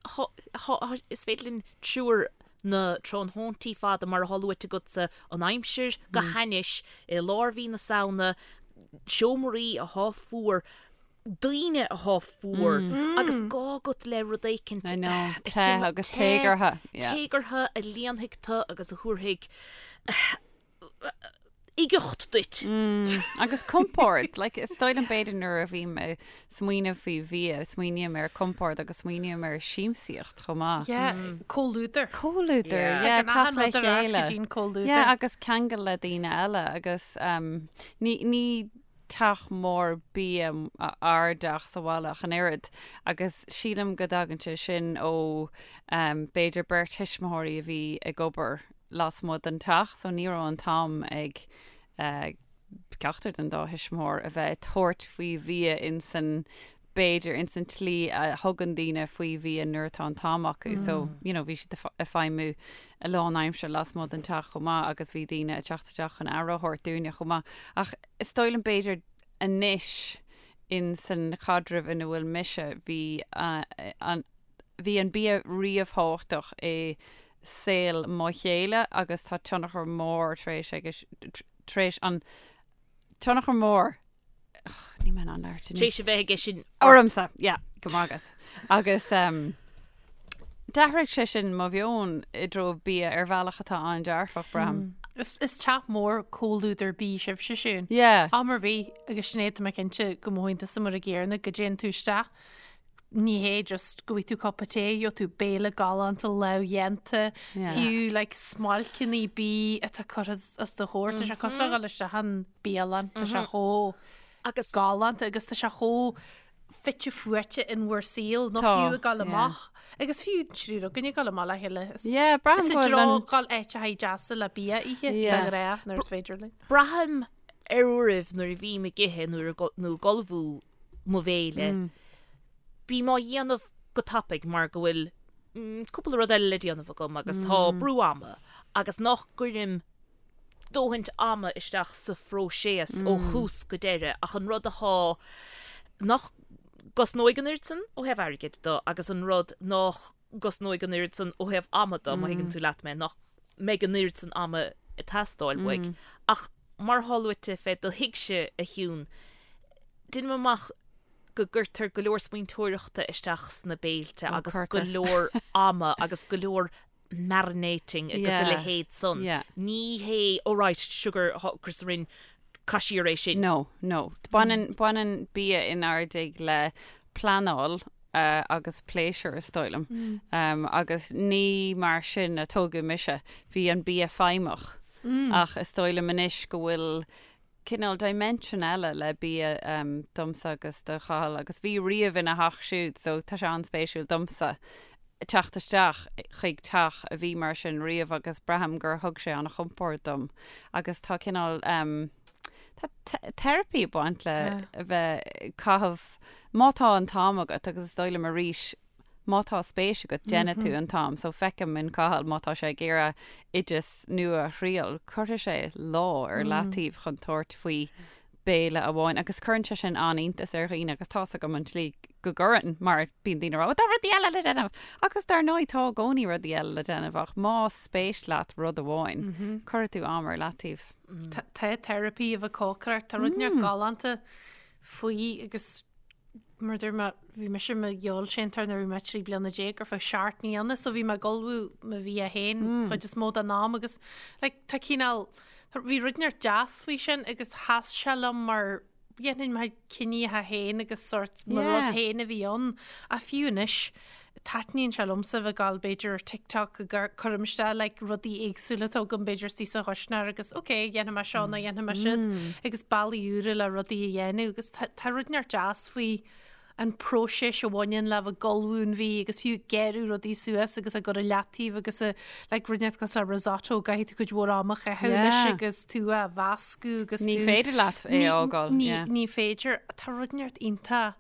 is féidir linn triúr na tráthnóntaí fada mar atá luaite agatsa, an aimsir go hainnis i lár mhí na Samhna, seomraí atá fuar, daoine atá fuar agus gá agat le rud éicint I know, te agus téagartha. Téagartha a líonfaidh tú agus a thabharfaidh uigeacht duit. Agus compord, like, is dóigh liom b'fhéidir nuair a bhím ag smaoineamh faoi bhia, smaoiním ar compord agus smaoiním ar siamsaíocht chomh maith. Yeah, comhluadar. Comhluadar, Yeah. yeah, Tagann achan teacht le rud ar ais go chéile. dtí an comhluadar. Yeah, agus ceangal le daoine eile agus um, ní, ní teach mór bia ár dteach sa bhaile ach an oiread agus sílim go dtagann sé sin ó um, b'fhéidir beirt thuismitheoirí a bhí ag obair lasmuigh den teach so ní raibh an t-am ag uh, ceachtar den dá thuismitheoir a bheith ag tabhairt faoi bhia insan b'fhéidir insan tslí a thugann daoine faoi bhia nuair atá an t-am acu. So, you know, bhí siad ag feidhmiú a lán aimsir lasmuigh den teach chomh maith agus bhí daoine ag teacht isteach chun aire a thabhairt dúinne chomh maith. Ach is dóigh liom b'fhéidir anois insan chaidreamh ina bhfuil mise, bhí an, bhí an bia ríomhthábhachtach i saol mo chéile agus tá tionchar mór tar éis aige, tar éis an tionchar mór, níl mé in ann labhairt inniu. Tar éis a bheith aige sin ormsa, yeah, go maith agat. Agus um, d'athraigh sé sin mo mheon i dtreo bia ar bhealach atá an-dearfach, braithim. Is, is teach mór comhluadar bídh sibhse Siún. Yeah. Am ar bith agus Sinéad tá mé cinnte go mothaíonn tusa mar an gcéanna go dtéann tú isteach ní hé just go bhfaighidh tú cupa tae, gheobhaidh tú béile galánta lámhdhéanta, Yeah. fiú like smailceanna bídh atá curtha os do chomhair, tá sé cosúil le dhul isteach in bialann, tá sé chomh Agus galánta agus tá sé chomh fite fuaite in bhur saol, nó Tá, fiú ag dul yeah. amach. Agus fiú triúr againn ag dul amach le chéile. Is- Yeah, braithim Is go i bhfuil dtreo an- dhul áiteacha deasa le bia a ithe, Yeah. de ghnáth, nuair is féidir linn. Braithim ar uairibh nuair a bhím ag ithe nuair a go- nó ag ullmhú mo bhéile. Bím á dhéanamh go tapaidh mar go bhfuil cúpla rud eile le déanamh agam agus tá brú ama agus nach gcuirim dóthaint ama isteach sa phróiseas ó thús go deireadh ach an rud athá nach gcosnóidh an oiread san ó thaobh airgid de agus an rud nach gcosnóidh an oiread san ó thaobh ama de, má thuigeann tú leat mé, nach mbeidh an oiread san ama ag teastáil uaidh. Ach mar atá luaite fé do thigse, a Shiún, deinim amach go gcuirtear go leor smaointeoireachta isteach sna béilte Ó, agus go cuirtear. leor ama agus go leor marinating agus a Yeah. leithéid san. Yeah. Ní hé, oh right, sugar, Chris Rin, caith siar é sin. No, no. Baineann, baineann bia inár dtigh le pleanáil agus pléisiúr is dóigh liom. Agus ní mar sin a tógadh mise. Bhí an bia feidhmeach. Ach is dóigh liom anois go bhfuil cineál dimension eile le bia domsa agus do Chathal agus bhí riamh ina theach siúd so tá sé an-spéisiúil domsa teacht isteach chuig teach a bhí mar sin riamh agus braithim gur thug sé an-chompord dom agus tá cineál Tá teiripí ag baint le a bheith ag caitheamh, má tá an t-am agat, agus is dóigh liom arís, má tá spéis agat, déanfaidh tú an t-am. So feicim in Cathal, má tá sé ag iarraidh oideas nua a thriail, cuirfidh sé lá ar leataobh chun tabhairt faoi béile amháin. Agus cuireann sé sin an-iontas ar dhaoine agus tá's agam an tslí go gcuireann, mar bíonn daoine ag rá, tá rudaí eile le déanamh! Agus dar ndóigh tá i gcónaí rudaí eile le déanamh ach más spéis leat rud amháin, cuirfidh tú am ar leataobh. Tá therapy a bheith ag cócaireacht, tá rud inteacht galánta faoi agus mar dúirt mé, bhí mise i mo fheoilséantóir nuair a bhí mé 13 bliana ar feadh seacht mbliana so bhí mé ag ullmhú mo bhia féin chuid is mó den am agus like, tá cineál, bhí rud inteacht deas faoi sin agus sheas sé liom mar dhéanfainn mo chinntí féin agus sort mo rud féin a bhí ann. Ach fiú anois, taitníonn sé liomsa bheith ag gabháil b'fhéidir ar TikTok ag cuirim isteach like rudaí éagsúla atá agam b'fhéidir istigh sa chuisneoir agus ok, dhéanfaidh mé seo nó dhéanfaidh mé siúd agus bealaí úra le rudaí a dhéanamh agus tá rud inteacht deas faoi an próiseas a bhaineann le bheith ag ullmhú an bhídh agus fiú ag gearradh rudaí suas agus ag cur i leataobh agus a like rud inteacht cosúil le risotto caithfidh tú cuid mhór ama a chaitheamh leis Yeah. agus tú á mheascadh agus Ní tú féidir leat é Ní- a fhágáil, ní yeah. ní féidir tá rud inteacht iontach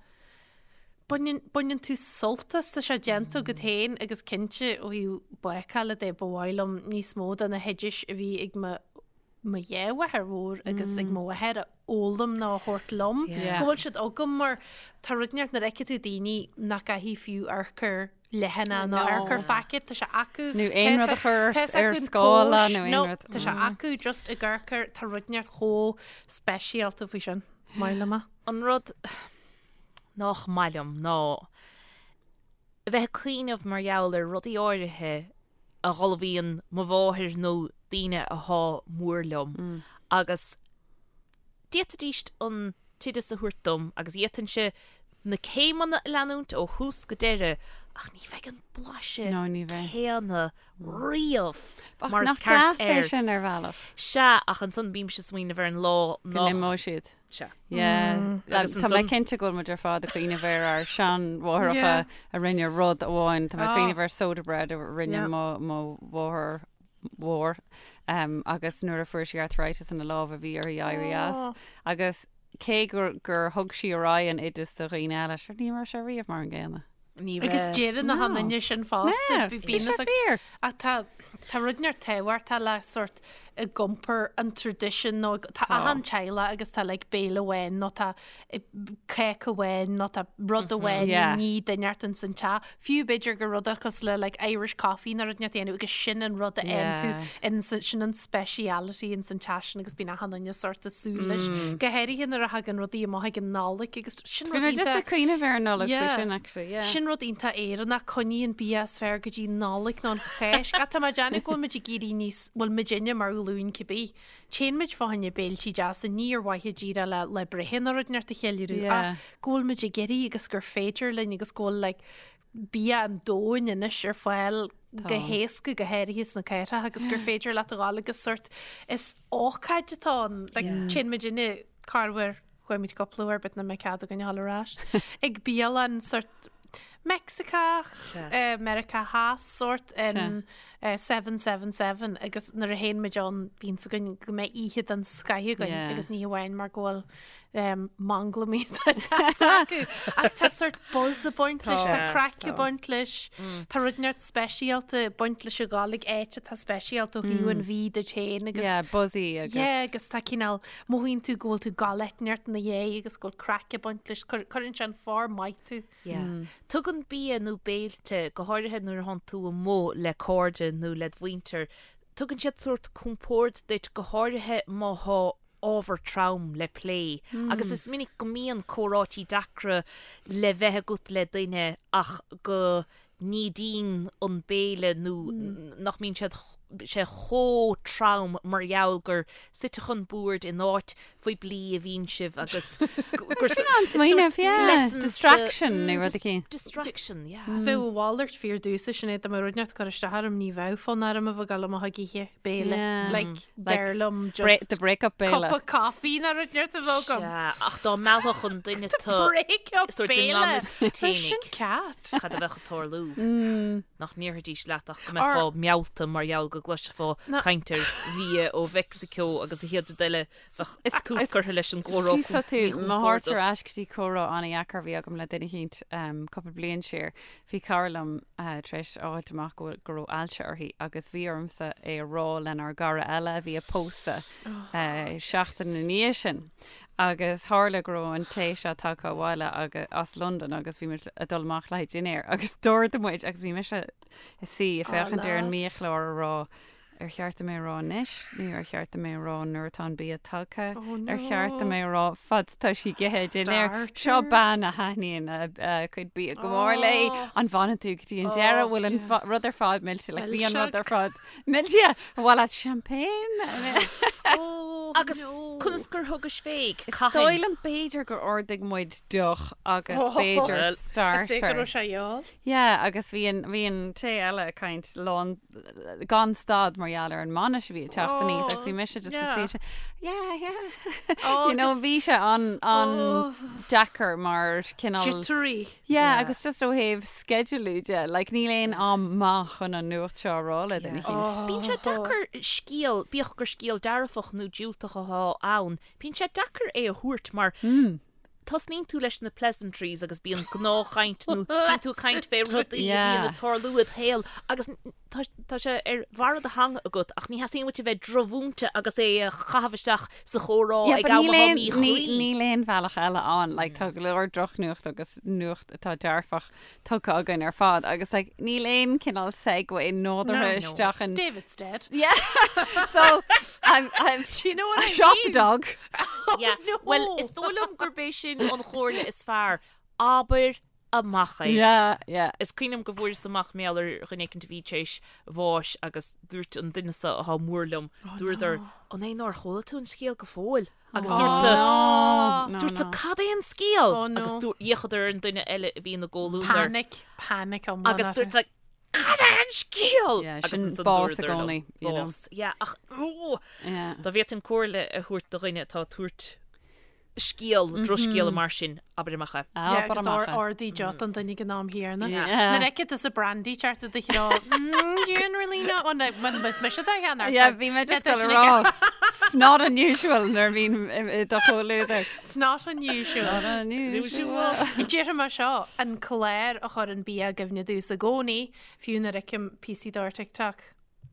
baineann baineann tú sult as tá sé déanta agat féin agus cinnte ó thaobh bácála de ba mhaith liom níos mó de na hoidis a bhí ag mo mo dhá mháthair mhór agus ag mo mháthair a fhoghlaim nó a thabhairt liom, go bhfuil siad agam mar tá rud inteacht nuair a fheiceann tú daoine nach gcaithfidh fiú urchar leathanach nó urchar phacket, tá sé acu. Nó aon rud a chur ar scála nó aon rud. Tá sé acu just ag urchar, tá rud inteacht chomh speisialta faoi sin. Is maith liom é. An rud nach maith liom ná a bheith ag cuimhneamh mar gheall ar rudaí áirithe a dh'ullmhaíonn mo mháthair nó daoine athá mór liom agus d'fhéadfaidís an t-oideas a thabhairt dom agus d'fhéadfainnse na céimeanna a leanúint ó thús go deireadh ach ní bheidh an blaiseadh No, ní bheidh. céanna riamh Ach mar is nach ceart deas é air. sin ar bhealach? Sea, ach ansan bímse ag smaoineamh ar an lá Go nach. n-imeoidh siad. Sea. Yeah. Agus Tá mé ansan- cinnte go bhfuil muid ar fad ag cuimhneamh ar ár seanmháithreacha Yeah. a rinne rud amháin. Tá mé ag Ah. cuimhneamh ar soda bread a rinne Yeah. mo mo mháthair mhór um, agus nuair a fuair sí arthritis ina lámha bhí uirthi éirí as. Oh. Agus cé gur, gur thug sí ar aghaidh an oideas do dhaoine eile, sure ní raibh sé riamh mar an gcéanna. Ní Agus raibh. deireann na No. duine sin fosta. Yeah, Bhí bhí bíonn sé fhios ag- fíor. Ach tá tá rud inteacht tábhachtach le sort ag iompar an tradition nó tá achan teaghlach agus tá like béile amháin nó tá eh, cake amháin nó tá rud amháin Yeah. ní duine inteacht ins an teach. Fiú b'fhéidir gur rud cosúil le like Irish coffee nó rud inteacht a dhéanamh agus sin an rud a fhaigheann tú Yeah. in san- sin an speciality ins an teach sin agus bíonn achan duine sort ag súil leis. Go háirithe nuair a thagann rudaí amach ag an Nollaig agus sin Bhí rud mé just iontach- ag cuimhneamh ar an Nollaig faoi Yeah. sin actually, yeah. Sin rud iontach Éireannach, coinnigh an bia is fearr go dtí Nollaig nó an Cháisc. Ach tá mé ag déanamh go bhfuil muid ag éirí níos, bhfuil muidinne mar ghlúin cibé. Téann muid fá choinne béiltí deasa, ní ar mhaithe díreach le le breithe nó rud inteacht a cheiliúradh, Yeah. ach go bhfuil muid ag éirí agus gur féidir linn agus go bhfuil like bia an domhain anois ar fáil go héasca go háirithe sna cathracha agus gur féidir leat a ghabháil agus sort is ócáid atá ann. Like téann muidinne corruair Chuaigh muid cúpla uair but nach mbeidh cead againn a dhul ar ais. Ag bialann sort Meicsiceach, Meiriceá Theas sort in 777 agus nuair a théann muid ann bíonn fhios againn go mbeidh oíche den scoith againn agus ní hamháin mar go bhfuil manglam iontach deas acu. Ach tá sort buzz ag baint leis, tá craic ag baint leis, tá rud inteacht speisialta ag baint leis a ghabháil ag áit atá speisialta ó thaobh an bhídh duit féin agus Yeah, buzzy agus Yeah, agus tá cineál Mothaíonn tú go bhfuil tú ag gabháil áit inteacht ina dhiaidh agus go bhfuil craic ag baint leis. Cuireann sé in form maith tú. Yeah. Tugann bia nó béilte, go háirithe nuair a thánn tú amuigh le cairde nó led mhuintir, tugann siad sórt compord duit, go háirithe má thá ábhar trom le plé. Agus is minic go mbíonn comhráití deacra le bheith agat le duine ach go n-ídíonn an béile nó nach mbíonn siad sé chomh trom mar gheall gur suite chun boird in áit phoiblí a bhíonn sibh agus gur Sin an-smaoineamh, yeah. Distraction nó rud eicínt. Distraction, yeah. Bheadh a mhalairt fíor domhsa Sinéad dá mbeadh rud inteacht ag cur isteach orm ní bheadh fonn orm a bheith ag dul amach ag ithe béile. Like, b'fhearr liom just The break-up béile. cup of coffee nó rud inteacht a bheadh agam. Sea, ach dá meallfadh an duine The break-up sórt i béile. ngan fhios duit Tá sin fhéinig. cat. Cad a bheadh ag tarlú? Nach ndéarfaidís leat ach go mbeifeá meallta mar gheall go gcloisfeá caint ar bhia ó Mheicsiceo agus an chéad rud eile bheadh tús curtha leis an gcomhrá Tá tú mo thabhairt ar ais go dtí comhrá an-dheacair a bhí agam le duine eicínt cúpla bliain siar. Bhí cara liom tar éis a fháilt amach go bhfuil go raibh ailse uirthi agus bhí ormsa é a rá lenár gcara eile a bhí ag pósadh seachtain ina dhiaidh sin. Agus tharla go raibh an té seo tagtha abhaile agus as Londain agus bhí muid ag dul amach le haghaidh dinnéir agus d'ordaigh muid agus bhí mise ag suí ag féachaint ar an mbiachlár ag rá. Ar cheart dom é a rá anois nó ar cheart dom é a rá nuair atá an bia tagtha? Ar cheart dom é a rá fad tá sí ag ithe dinnéar? Seo bean a thaitníonn a cuid bia go mór léi. An bhfanann tú go dtí an deireadh? Bhfuil an rud ar fad millte? Like, bhí an rud ar fad millte. An mhaith leat champagne? Agus conas gur thugais fé? Is dóigh liom b'fhéidir gur ordaigh muid deoch agus b'fhéidir starter. I'd say go raibh sé gheall. Yeah, agus bhí an, bhí an té eile ag caint lán, gan stad mar gheall ar an mbainis a bhí ag teacht aníos agus bhí mise just yeah. Sea, yeah, yeah. Oh, you know, bhí sé an, an oh. deacair mar cineál. Jittery. Yeah, yeah, agus just ó thaobh sceidealú de, like, níl aon am maith chun an nuacht seo a rá le duine eicínt. Oh. Bíonn sé deacair scéal, bíodh gur scéal dearfach nó diúltach atá ann, bíonn sé deacair é a thabhairt mar mm. tosnaíonn tú leis na pleasantries agus bíonn gnáthchaint nó bíonn tú ag caint fé rudaí a bhíonn ag tarlú id shaol agus tá sé ar bharra do theanga agat ach ní theastaíonn uait a bheith drochmhúinte agus é a chaitheamh isteach sa chomhrá ag am atá míchuí. Níl aon bhealach eile ann, like tá go leor drochnuacht agus nuacht atá dearfach tugtha againn ar fad agus like níl aon cineál segue nádúrtha isteach in David's dead. Yeah. So I'm I'm Do you know what I I shot the mean? dog. Yeah. No. Well, is dóigh liom gurb é sin an chomhairle is fearr. Abair amach é. Yeah, yeah. Is cuimhin liom go bhfuaireas amach mar gheall ar dhuine éicint a bhí tar éis bháis agus dúirt an duine so atá mór liom, dúradar, an é nár chuala tú an scéal go fóill? Agus dúrtsa, dúrtsa, cad é an scéal? Agus d'fhéachadar ar an duine eile a bhí ina gcomhluadar. Panic, panic iomlán. Agus dúrtsa, cad é an scéal? Yeah, Agus sin ansan bás i dúradar liom, gcónaí, you know. Bás. Yeah, ach, ó, Yeah. dá bhféadfainn comhairle a thabhairt do dhuine atá ag tabhairt scéal, drochscéala mar sin, abair amach é. Yeah, Abair agus amach é. ordaigh deoch don duine ag an am chéanna. Yeah. Nuair a fheiceann tusa brandy teacht i do threo, mm, generally no, oh, no, is mise do cheann Yeah, bhí mé just ag dul a rá. It's not unusual nuair a bhíonn i do chomhluadar. It's not unusual. Not unusual. Déarfaidh mé seo, an clár a chuireann bia i gcuimhne domhsa i gcónaí, fiú nuair a fheicim píosaí de ar TikTok.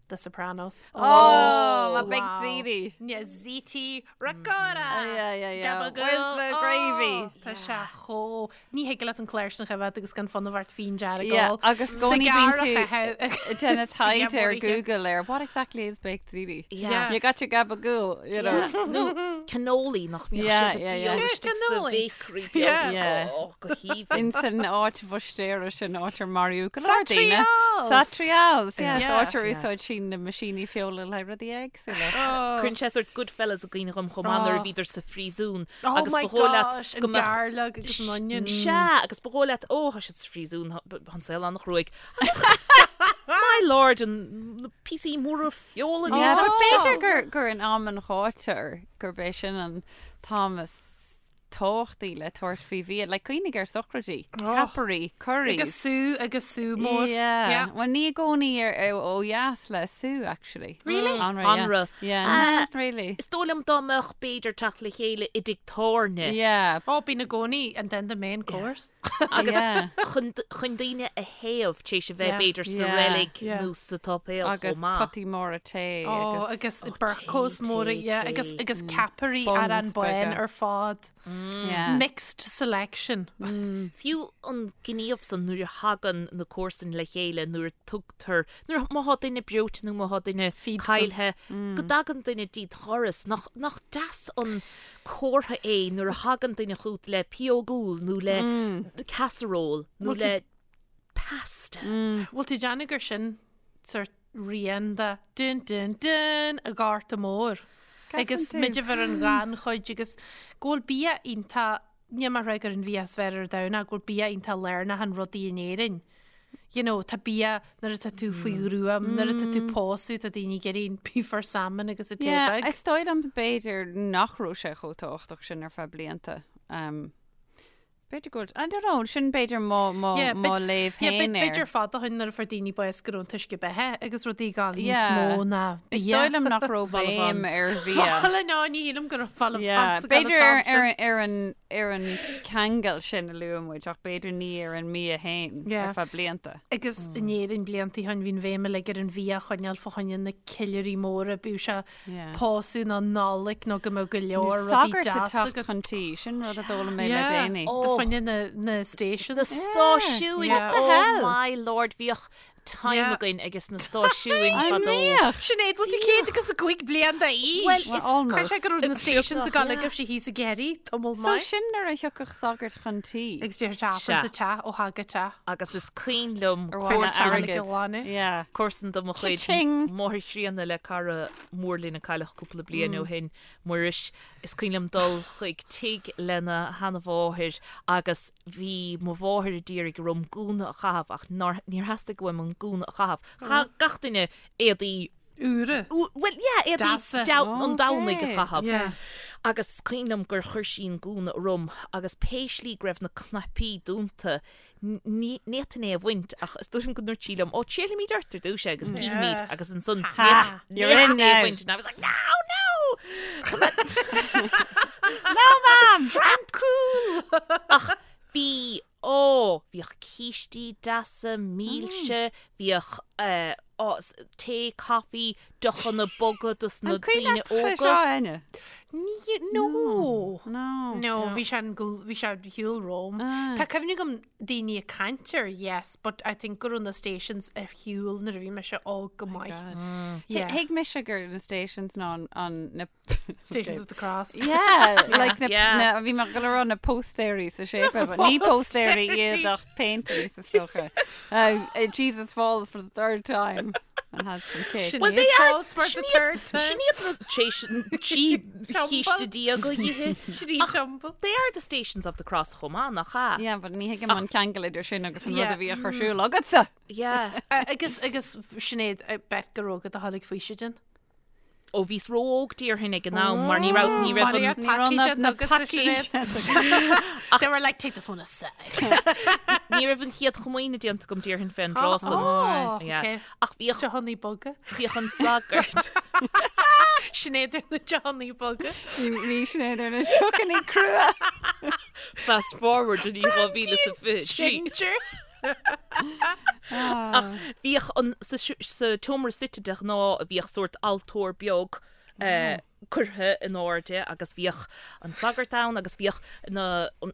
The Sopranos. Oh, my baked ziti. Yeah, ziti ricotta. Yeah, yeah, yeah. Gabagool. Where's the gravy? Oh, tá sé chomh... Ní thig leat an clár sin a choimhéad agus gan fonnadh ort fíon dearg Yeah, a ól. agus i gcónaí bíonn tú déanamh taighde ar Bia Google ar what exactly is baked ziti? Yeah. You got your gabagool, you know. Nó cannoli nach mbíodh Yeah, siad ag yeah, yeah. díol istigh sa Cannoli. bhéicrí beag. Yeah. Yeah. Oh, go haoibhinn. In san áit bhuistéire sin áit ar maraíodh go leor daoine. Satrials! Satrials, yeah, Yeah. áit ar úsáid sí na meaisíní feola le rudaí éagsúla. Cuireann sé sort Goodfellas i gcuimhne dhom chomh maith nuair a bhíodar sa phríosún Oh agus my ba dhóigh leat gosh, an go mbeadh garlic agus an onion. Sea, agus ba dhóigh leat, ó, tá siad sa phríosún, tá an saol an-chruaidh. Agus my lord, an na píosaí móra feola a bhí Yeah, ag but teacht b'fhéidir gur gur in am an ghátair gurb é sin an t-am is tábhachtaí le tabhairt faoi bhia, like cuimhnigh ar sochraidí, ceapairí, curries. Agus sú agus sú mór. Yeah. Yeah. Well, ní i gcónaí ar ó dheas le sú, actually. Really? Anraith, yeah. Anraith. Yeah, Ah. not really. Is dóigh liom dá mbeadh b'fhéidir teacht le chéile i dtigh tábhairne Yeah. Ó, bíonn i gcónaí and then the main course. agus Yeah. chun chun daoine a théamh tar éis a bheith Yeah. b'fhéidir sa Yeah. reilig Yeah. nó sa tsáipéal Agus chomh maith. potaí móra tae Ó, agus agus bercos tae, móra, tae, yeah, tae. agus agus ceapairí Buns ar an bun beaga. ar fad. Yeah. Mixed selection. Fiú an gníomh san nuair a thagann na comharsain le chéile, nuair a tugtar, nuair, má thá duine breoite nó má thá duine Feed them. caillthe, go dtagann duine dtí do dhoras. Nach, nach deas an comhartha é nuair a thagann duine chugat le pióg úll nó le casserole nó Bhfuil tú- le pasta. Bhfuil tú ag déanamh gur sin sort rian de dun dun dun an Ghorta Mhóir. Agus tú? muid a bheith ar an ghannchuid agus go bhfuil bia iontach, níl mé ag rá gur an bhia is fearr ar domhan ach go bhfuil bia iontach lárnach in rudaí in Éirinn. You know, tá bia nuair atá tú faoi ghruaim, nuair atá tú pósadh, tá daoine ag iarraidh beef or salmon agus a tae Yeah, beag. is dóigh liom b'fhéidir nach raibh sé chomh tábhachtach sin ar feadh blianta. Um, B'fhéidir go bhfuil, I don't know, sin b'fhéidir mo, mo, Yeah, mo léamh yeah, féin air. B'fhéidir fada ó shin nuair a fuair daoine bás go raibh an t-uisce beatha agus rudaí ag gabháil níos Yeah. mó ná Is bia. dóigh liom nach raibh béim Vol-au-vents. ar bhia. Bhuel, no, ní shílim go raibh vol-au-vents Yeah, ag gabháil B'fhéidir an ar, t-am sin. ar, ar, an, ar an ceangal sin a luaigh muid ach b'fhéidir ní ar an mbia féin Yeah. ar feadh blianta. Agus in Éirinn blianta ó shin bhí an bhéim uilig ar an bhia a choinneáil fá choinne na ceiliúraí móra, bíodh sé Yeah. pósadh nó Nollaig nó go mbeadh go leor rudaí Sagart ag deas teacht agat. chun tí, sin rud a d'fhoghlaim mé le Yeah. déanaí. Fá choinne na, na stations. Na stáisiúin, Yeah. oh hell? my lord, bhíodh time Yeah. againn ages na stáisiúin An fadó. mbíodh? Sinéad, bhfuil tú 105 bliain d'aois? Well, Well, is almost. Caithfidh sé go raibh na stations ag dul ag raibh sí thíos ag iarraidh tamall So maith. sin nuair a thiocfadh sagart chun tí. Agus deir teach Sea. sa teach ó thagadh teach. Agus is cuimhin liom Ar mhaith le comharsan airgead. glanadh. Yeah. comharsan de mo chuid Cha-ching. máthair chríonna le cara mór linn a cailleadh cúpla bliain ó shin, Muiris. Is cuimhin liom dul chuig tigh lena sheanamháthair agus bhí mo mháthair a d'iarraidh orm gúna a chaitheamh ach nár, níor theastaigh uaim an gúna a chaitheamh. Chaith gach duine éadaí Úra. Bhuel, yeah, éadaí Deasa. an Domhnaigh a Okay. chaitheamh. Yeah. Agus is cuimhin liom gur chuir sí an gúna orm agus pé slí go raibh na cnaipí dúnta, ní fhéadfainn é a bhaint ach is dóigh liom go ndúirt sí liom, ó, triailfimid ort ar dtús é agus cífimid Yeah. agus ansan Ha! ní You're in fhéadfainn é a now. bhaint and I was like, no, no! No, mam! I'm cool! Ach bhí, ó, bhíodh cístí deasa, milse, bhíodh eh, ó, tae, coffee, deochanna boga dos na An cuimhin daoine leat fé óga. seo, Áine? Ní, no. No. No, bhí sé an gl- bhí sé ar shiúl romham. Ah. Tá cuimhne agam daoine ag caint air, yes, but I think go raibh na stations ar shiúl nuair a bhí mise óg go maith. Yeah. Thuig mise gur na stations ná an- an na Stations of the Cross. Yeah, like na, Yeah. na, bhí mé ag dul a rá na póstaerí sa séipéal, but ní póstaerí iad ach paintings is dócha. Jesus falls for the third time and has some cake. Sin Well, they iad are falls for the sin iad- third time. Sin iad na sé trí chíste diaga dhíthe. Sin iad tumble. They are the stations of the cross chomh maith, nach ea? Yeah, but ní thuigim an ceangal idir sin agus an rud Yeah. a bhí á chur ar siúl agatsa. Yeah. Agus agus Sinéad, I bet go raibh agat a tháinig faoisidin. Ó bhíos ró-óg déarfainn ag an am mar ní raibh ní raibh an Ní raibh na- na pacaí They were like, take this one aside. ní raibh an chéad chomaoine déanta agam déarfainn fén dtráth san. Oh, Yeah. okay. Ach bhíodh Deochanna boga. bhíodh an sagart. Sinéad ar na deochanna boga. Bhí Sinéad ar na deochanna crua. Fast forward in 2023. Ginger. Ach bhíodh an sa sa tseomra suite de ghnáth a bhíodh sórt altóir beag eh, curtha in airde agus bhíodh an sagart ann agus bhíodh na an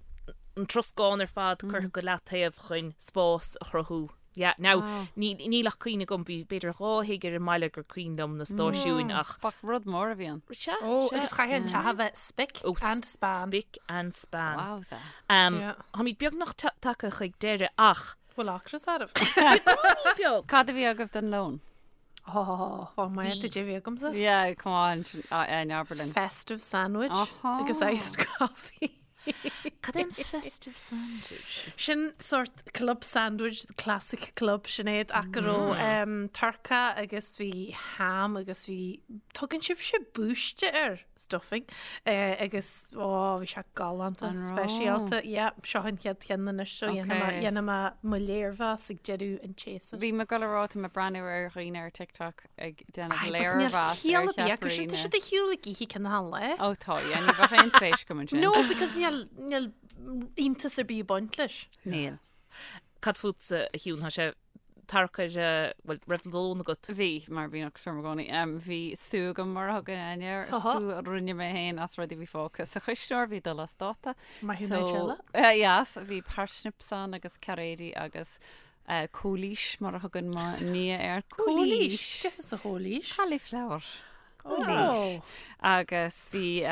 an troscán ar fad curtha go leataobh chun spás a chruthú. Yeah, now, ní níl ach cuimhne agam, bhí b'fhéidir 2 thigh ar an mbaile gur cuimhin liom na stáisiúin ach Bach rud mór a bhí ann. Sea, Ó, sea. agus chaithfeadh an teach a bheith spick Ó, and span. Spick and span. Wowza. Um, Yeah. Táimid beagnach tagtha chuig deireadh ach. Bhfuil ocras oraibh? Beag. Cad a bhí agaibh don lón? Oh, oh my, did you bhí agamsa? Yeah, come on, sin abair linn. Festive sandwich Aha. agus iced coffee. Cad é an festive sandwich? Sin sort club sandwich, the classic club Sinéad ach go raibh um, turca agus bhí ham agus bhí tugann sibhse búiste air stuffing eh, agus ó bhí sé galánta An raibh? speisialta. Yeah, seo an chéad cheann anois so Okay. dhéanfaidh mé mo léirmheas ag deireadh an tséasúir. Bhí mé ag dul a rá tá mé ag breathnú ar dhaoine ar TikTok ag déanamh Aye, but níl léirmheas ar ciall ar bith acu sin, tá cheapairí siad ar shiúl ag ithe cionn an lae. Ó tá, yeah, ní bheadh aon spéis agam ansin. No, because níl níl iontas ar bith ag baint leis. Níl. Cad fútsa a Shiún, tá sé tarcair, bhuel, raibh lón agat? Bhí, mar bíonn ocras orm i gcónaí. Bhí sú agam mar a thugann Áine air, Aha. sú a rinne mé féin as rudaí a bhí fágtha sa chuisneoir, bhí dul as dáta. Maith thú Nigella. So, yes, bhí parsnips ann agus cairéidí agus cóilís mar a thugann mo nia air. Cóilís? Cad é an chóilís? Cauliflower. Oh. Cóilís. Agus bhí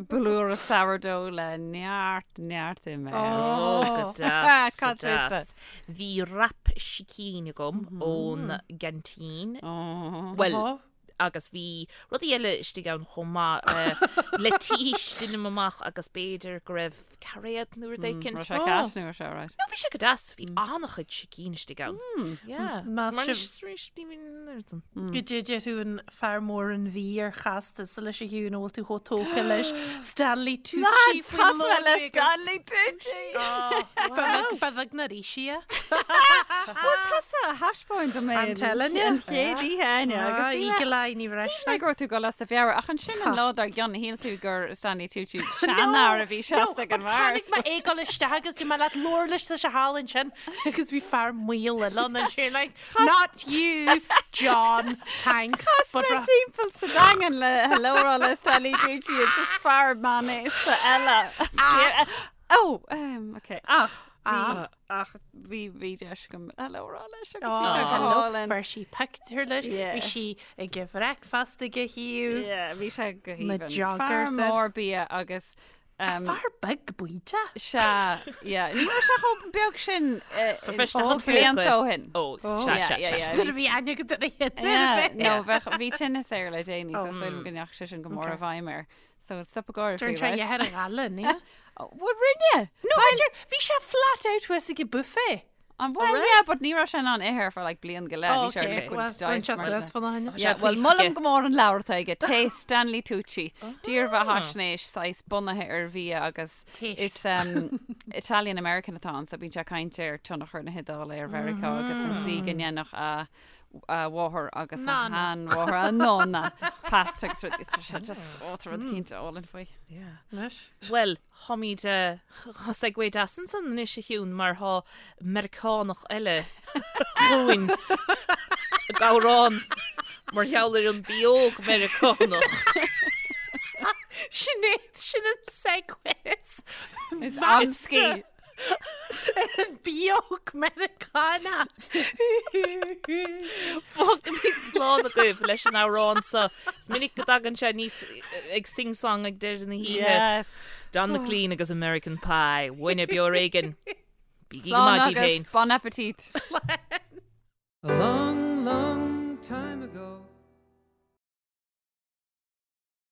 blúire sourdough le neart, neart im air. Oh, go deas, go Cad fútsa? deas. Bhí wrap sicín agam ón gceaintín. Oh. Bhuel, Oh. agus bhí rudaí eile istigh ann chomh maith, leitís deinim amach agus b'fhéidir go raibh cairéad nó rud éicint. Raibh sé ceart nó raibh sé alright? No, bhí sé go deas, bhí an-chuid sicín istigh ann. Yeah. Más Mar sibh- anois, arís, ní bhíonn an oiread san. Goidé deir tú an fear mór an bhí ar chas tusa leis a Shiún an bhfuil tú chomh tógtha leis Stanley Tucci Lads, faoin chas mé lón le bheag. Stanley Tucci! Ba bheag- ba bheag na rísí é. Bhuel, tusa a thaispeáin dom é I'm telling you. an chéad oíche Áine, agus Ah, bhí mé- Eagle Eye, ní raibh Shíl mé go raibh tú ag dul as do mheabhair, ach ansin an lá dár gcionn shíl tú gur Stanley Tucci seanfhear a bhí seasta ag an mbeár. Tháinig mé ag dul isteach agus dúirt mé leat labhair leis tá sé thall ansin agus bhí fear maol eile ann and you're like, not you, John, thanks. Chas But mé ra- timpeall sa Daingean le hello a rá le Stanley Tucci and just fear meánaosta eile. Oh, um, okay. Ach, Bhí, ach bhí, bhí deis agam hello a rá leis agus bhí sé go hálainn. Fuair sí pictiúr leis, bhí sí ag bhreicfeast ag a thaobh. Yeah, bhí sé go Na haoibhinn. joggers Fear air. mór bia agus um, Fear beag baoite. Sea, yeah. Ní raibh sé chomh beag sin eh, Ba bheist a ó blianta ó shin. Ó, sea, Yeah, sea, yeah, sea. yeah, Nuair a bhí- bhí aithne agat ar a chéad uair Yeah, ar bith. no, bheadh, bhí tinneas air le déanaí, so is dóigh liom go ndeachaigh sé sin go mór i bhfeidhm air. So stop ag gáire Dúirt faoi, sé right? dheathair a ghaile, ní? Bhuel, rinne! No, b'fhéidir, bhí sé flat out thuas ag an buffet. An bhfuil? Yeah, but ní raibh sé in ann ithe for like bliain go leith. Oh, Bhí sé ar okay. liquid Well, diet rinne sé mar suas sin. fan a thaine. Yeah, Sé well, taoiseach molaim aige. go mór an leabhar atá aige, Taste, Stanley Tucci, dírbheathaisnéis saghas bunaithe ar bhia agus Taste. is um, Italian American atá ann, so bíonn sé ag caint ar tionchar na hIodáile ar Mheiriceá agus an tslí go ndéanfadh a a mháthair agus a Nana. sheanmháthair, a nonna, pasta agus rud, tá sé just, ó, tá rud cinnte álainn faoi. Yeah. Anois. Bhuel, tháimid tá segue deas ansan anois a Shiún mar thá Meiriceánach eile chugainn ag amhrán mar gheall ar an bióg Meiriceánach. Sin é, sin an segue. Is amscaí. An bióg Meiriceánach. Fágfaimid slán agaibh leis an amhrán seo. Is minic go dtagann sé aníos ag sing-song ag deireadh na hoíche. Yes. Don McLean agus American Pie. Uainne Beo Ar Éigean. Bígí go Slán maith daoibh agus féin. bon appetit. Along